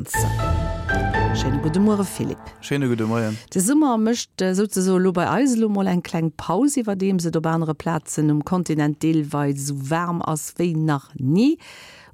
Vakanzen. Schéine gudde Muere Philippe. Schéine gudde Moien. De Summer mécht souzesoe lo bei eis elo mol eng kleng Paus, iwwerdeems et op anere Plazen um Kontinent deelweis esou waarm ass wéi nach ni.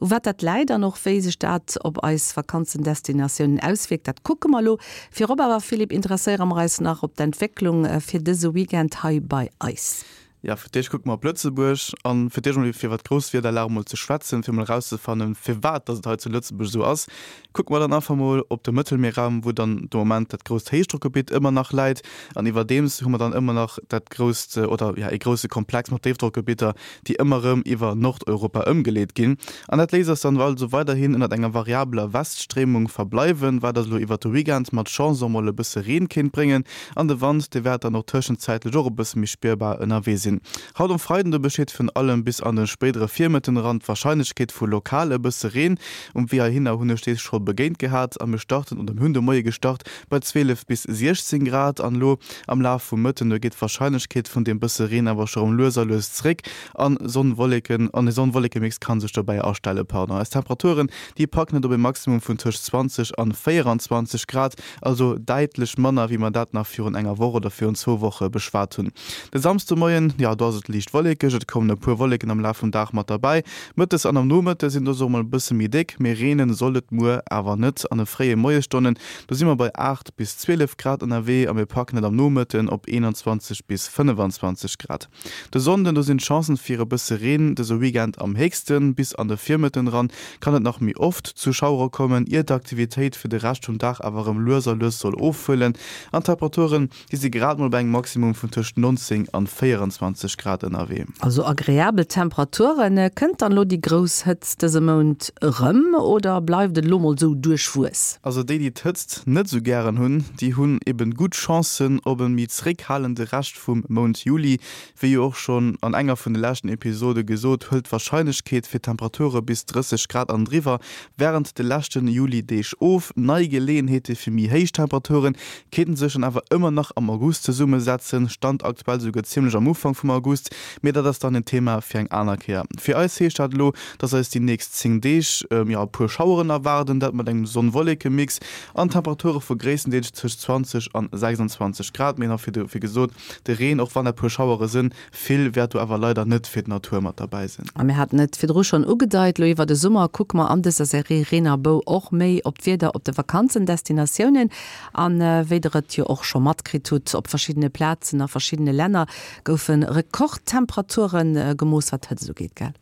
U wat dat läit an och wéi sech dat op eis Vakanzendestinatiounen auswierkt, dat kucke mer elo. Virop awer, Philippe, interesséiere mer eis nach op d'Entwécklung fir dëse Weekend hei bei eis. Jo, fir d'éischt kucke mer op Lëtzebuerg an fir d'éischt emol fir iwwer d'Grousswiederlag emol ze schwätzen, fir emol erauszefannen, firwat dass et hei zu Lëtzebuerg esou ass, kucke mer dann einfach emol op de Mëttelmierraum, wou dann de Moment dat grousst Héichdrockgebitt ëmmer nach läit. An iwwerdeems hu mer dann ëmmer nach dat grousst oder jo ee grousse Komplex mat Déifdrockgebitter, déi ëmmer erëm iwwer Nordeuropa ëmgeleet ginn. An dat léisst eis dann also weiderhin ënnert enger variabeler Weststréimung verbleiwen, wat eis elo iwwert de Weekend mat Chance och mol e bësse Reen kéint bréngen. An de Wand, dee wäert dann och tëschenzäitlech och e bësse méi spierbar ënnerwee sinn. Haut um Freiden, do besteet virun allem bis an de spéidere Virmëtten eran d'Warscheinlechkeet vu lokal e bësse Reen. Um Wee heihinner hunn ech dees scho begéint gehat a mir starten, oder mir hunn de Moie gestart bei 12 bis 16 Grad an elo am Laf vum Mëtten, do geet d'Warscheinlechkeet vun deem bësse Reen awer scho rëm lues a lues zréck an Sonn-Wolleken, an e Sonn-Wollekemix ka sech dobäi astellen. Pardon, eis Temperaturen, déi packen et op e Maximum vun tëscht 20 an 24 Grad. Also däitlech manner, wéi mer dat nach virun enger Woch oder virun zwou Woche beschwat hunn. De Samsdemoien, jo, do ass et liicht wollekeg, et kommen e puer Wolleken am Laf vum Dag mat derbäi. Mëttes an am Nomëtte sinn dës och mol e bësse méi déck, mee reene soll et muer awer net. An de fréie Moiesstonnen, do si mer bei 8 bis 12 Grad ënnerwee a mir packen et am Nomëtten op 21 bis 25 Grad. De Sonnden, do sinn d'Chancen fir e bësse Reen dëse Weekend am héchsten. Bis an de Virmëtten eran kann et nach méi oft zu Schauere kommen, ier d'Aktivitéit fir de Rescht vum Dag awer erëm lues a lues soll ofhuelen. An d'Temperaturen, déi si grad mol bei engem Maximum vun tëscht 19 an 24 Grad ënnerwee. Also agreabel Temperaturen. Kënnt dann elo déi grouss Hëtzt dëse Mount erëm oder bleift et elo mol sou duerchwuess? Also déi, déi d'Hëtzt net sou gären hunn, déi hunn eben gutt Chancen op e méi zeréckhalende Rescht vum Mount Juli. Wéi jo och schonn an enger vun de leschten Episode gesot, hëlt d'Warscheinlechkeet fir Temperature bis 30 Grad an driwwer wärend de leschten Juli-Deeg of. Nei Geleeënheete fir méi héich Temperature kéinten sech dann awer ëmmer nach am August zesummesetzen, Stand aktuell souguer zimmlech am Ufank vum August, mee dat ass dann en Thema fir eng aner Kéier. Fir eis heescht dat elo, dass eis déi nächst 10 Deeg jo e puer Schaueren erwaarden, dat mat engem Sonn-Wolleke-Mix an Temperature vu gréisstendeels tëscht 20 an 26 Grad. Mee nach wéi gesot, de Reen, och wann dat puer Schauere sënn, vill wäert do awer leider net fir d'Natur mat derbäi sinn. A mir haten et virdru schonn ugedeit, elo iwwer de Summer kucke mer an dëser Serie Reen a Bou och méi op d'Wieder op de Vakanzendestinatiounen. An wéi der et jo och scho matkritt hutt, op verschiddene Plazen a verschiddene Länner goufe Rekordtemperature gemooss, wat d'Hëtzt ugeet, gell?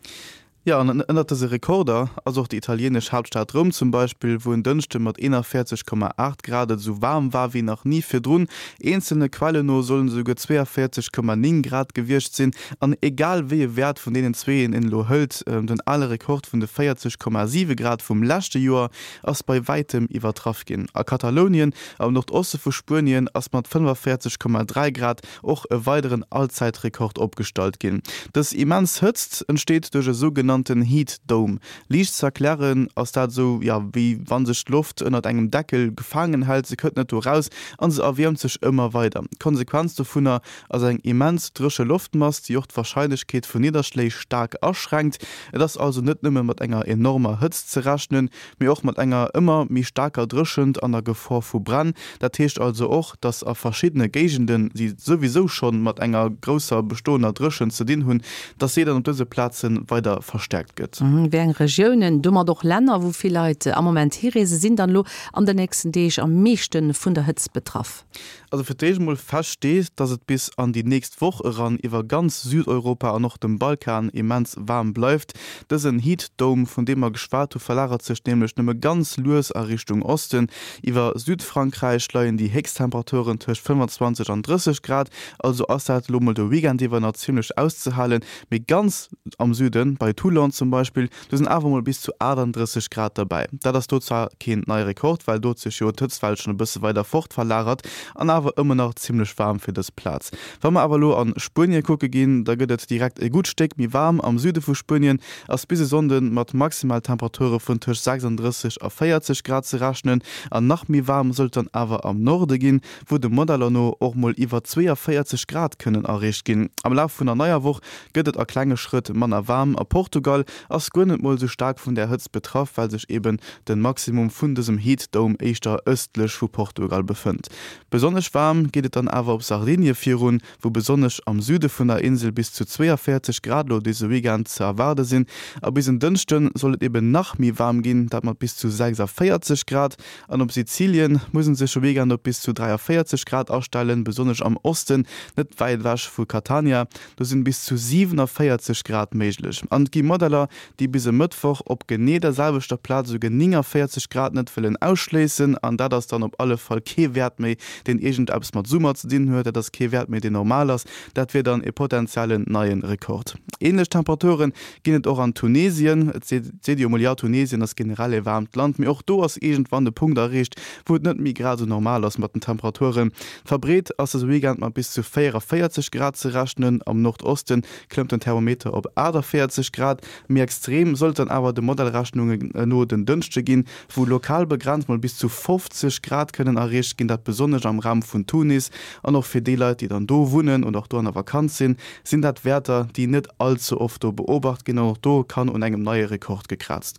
Jo, an ënnert dëse Rekorder ass och déi italienesch Haaptstad Roum zum Beispill, wou en Dënschde mat 41,8 Grad et esou waarm war wéi nach ni virdrun. Eenzelne Quellen no sollen et esouguer 42,9 Grad gewiescht sinn. An egal wéi e Wäert vun deenen zweeën een elo hëlt, den ale Rekord vun de 40,7 Grad vum leschte Joer ass bei wäitem iwwertraff ginn. A Katalounien, am Nordoste vu Spuenien, ass mat 45,3 Grad och e weideren Allzäitrekord opgestallt ginn. Dës immens Hëtzt entsteet duerch e sougenannten Heat Dome. Liicht ze erklären ass dat esou, jo, wéi wa sech d'Loft ënnert engem Deckel gefaangen hält, se kënnt net do raus an se erwiermt sech ëmmer weider. D'Konsequenz dovunner ass eng immens dréche Loftmass, déi och d'Warscheinlechkeet vun Nidderschléi staark aschränkt. Et ass also net nëmme mat enger enormer Hëtzt ze rechnen, mee och mat enger ëmmer méi staarker Dréchent an der Gefor vu Bränn. Dat heescht also och, dass a verschiddene Géigenden, déi souwisou schonn mat enger grousser bestoender Dréchent ze dinn hunn, dass si dann op dëse Plaze weider verstäerkt gëtt. Wéi eng Regiounen, domat och Länner, wou vill Leit am Moment hireesen, sinn dann elo an den nächsten Deeg am meeschte vun der Hëtzt betraff? Also fir d'éischt emol fest steet, dass et bis an déi nächst Woch eran iwwer ganz Südeuropa an och dem Balkan immens waarm bleift. Dësen Heat Dome, vun deem mer geschwat hu, verlagert sech nämlech nëmme ganz lues a Richtung Osten. Iwwer Südfrankräich leien déi héchst Temperaturen tëscht 25 an 30 Grad, also ass dat elo mol de Weekend iwwer nach zimmlech auszehalen. Mee ganz am Süden, bei Toulon zum Beispill, Do sinn awer mol bis zu 38 Grad derbäi. Dat ass do zwar keen neie Rekord, well do huet sech jo d'Hëtztwell schonn e bësse weider fort verlagert an awer ëmmer nach zimmlech waarm fir dës Plaz. Wa mer awer elo an Spuenie kucke ginn, da gëtt et direkt e gutt Stéck méi waarm. Am Süde vu Spuenien ass bis e Sonnde mat Maximaltemperature vun tëscht 36 a 40 Grad ze rechnen an nach méi waarm soll et dann awer am Norde ginn, wou de Modeller no och mol iwwer 42 Grad kënnen erreecht ginn. Am Laf vun der neier Woch gëtt et a klenge Schrëtt manner waarm. A Portugal. Portugal ass guer net mol esou staark vun där Hëtzt betraff, well sech eben de Maximum vun dësem Heat Dome éischter ëstlech vu Portugal befënnt. Besonnesch waarm geet et dann awer op Sardinie virun, wou besonnesch am Süde vun der Insel bis zu 42 Grad elo dëse Weekend ze erwaarde sinn. A bis en Dënschde soll et eben nach méi waarm ginn, dat mat bis zu 46 Grad. An op Sizilien muss en sech e Weekend op bis zu 43 Grad astellen, besonnesch am Osten, net wäit ewech vu Catania, do sinn bis zu 47 Grad méiglech. An et gi Modeller, déi bis e Mëttwoch op genee der selwechter Plaz esouguer 49 Grad net wëllen ausschléissen. An dat ass dann op alle Fall kee Wäert méi, deen iergendeppes mat Summer ze dinn huet. Dat ass kee Wäert méi, deen normal ass. Dat wier dann e potenziellen neie Rekord. Änlech Temperature ginn et och an Tunesien. Et seet ee jo emol, jo, Tunesien ass generell e waarmt Land, mee och do ass iergendwann de Punkt erreecht, wou et net méi grad esou normal ass mat den Temperaturen. Verbreet ass dëse Weekend mat bis zu 44 Grad ze rechnen. Am Nordoste klëmmt den Thermometer op 48 Grad. Méi extrem soll et dann awer de Modellrechnungen no den Dënschde ginn, wou lokal begrenzt mol bis zu 50 Grad kënnen erreecht ginn, dat besonnesch am Raum vun Tunis. An och fir déi Leit, déi dann do wunnen oder och do an der Vakanz sinn, sinn dat Wäerter, déi net all ze oft do beobacht ginn. An och do kann un engem neie Rekord gekraazt.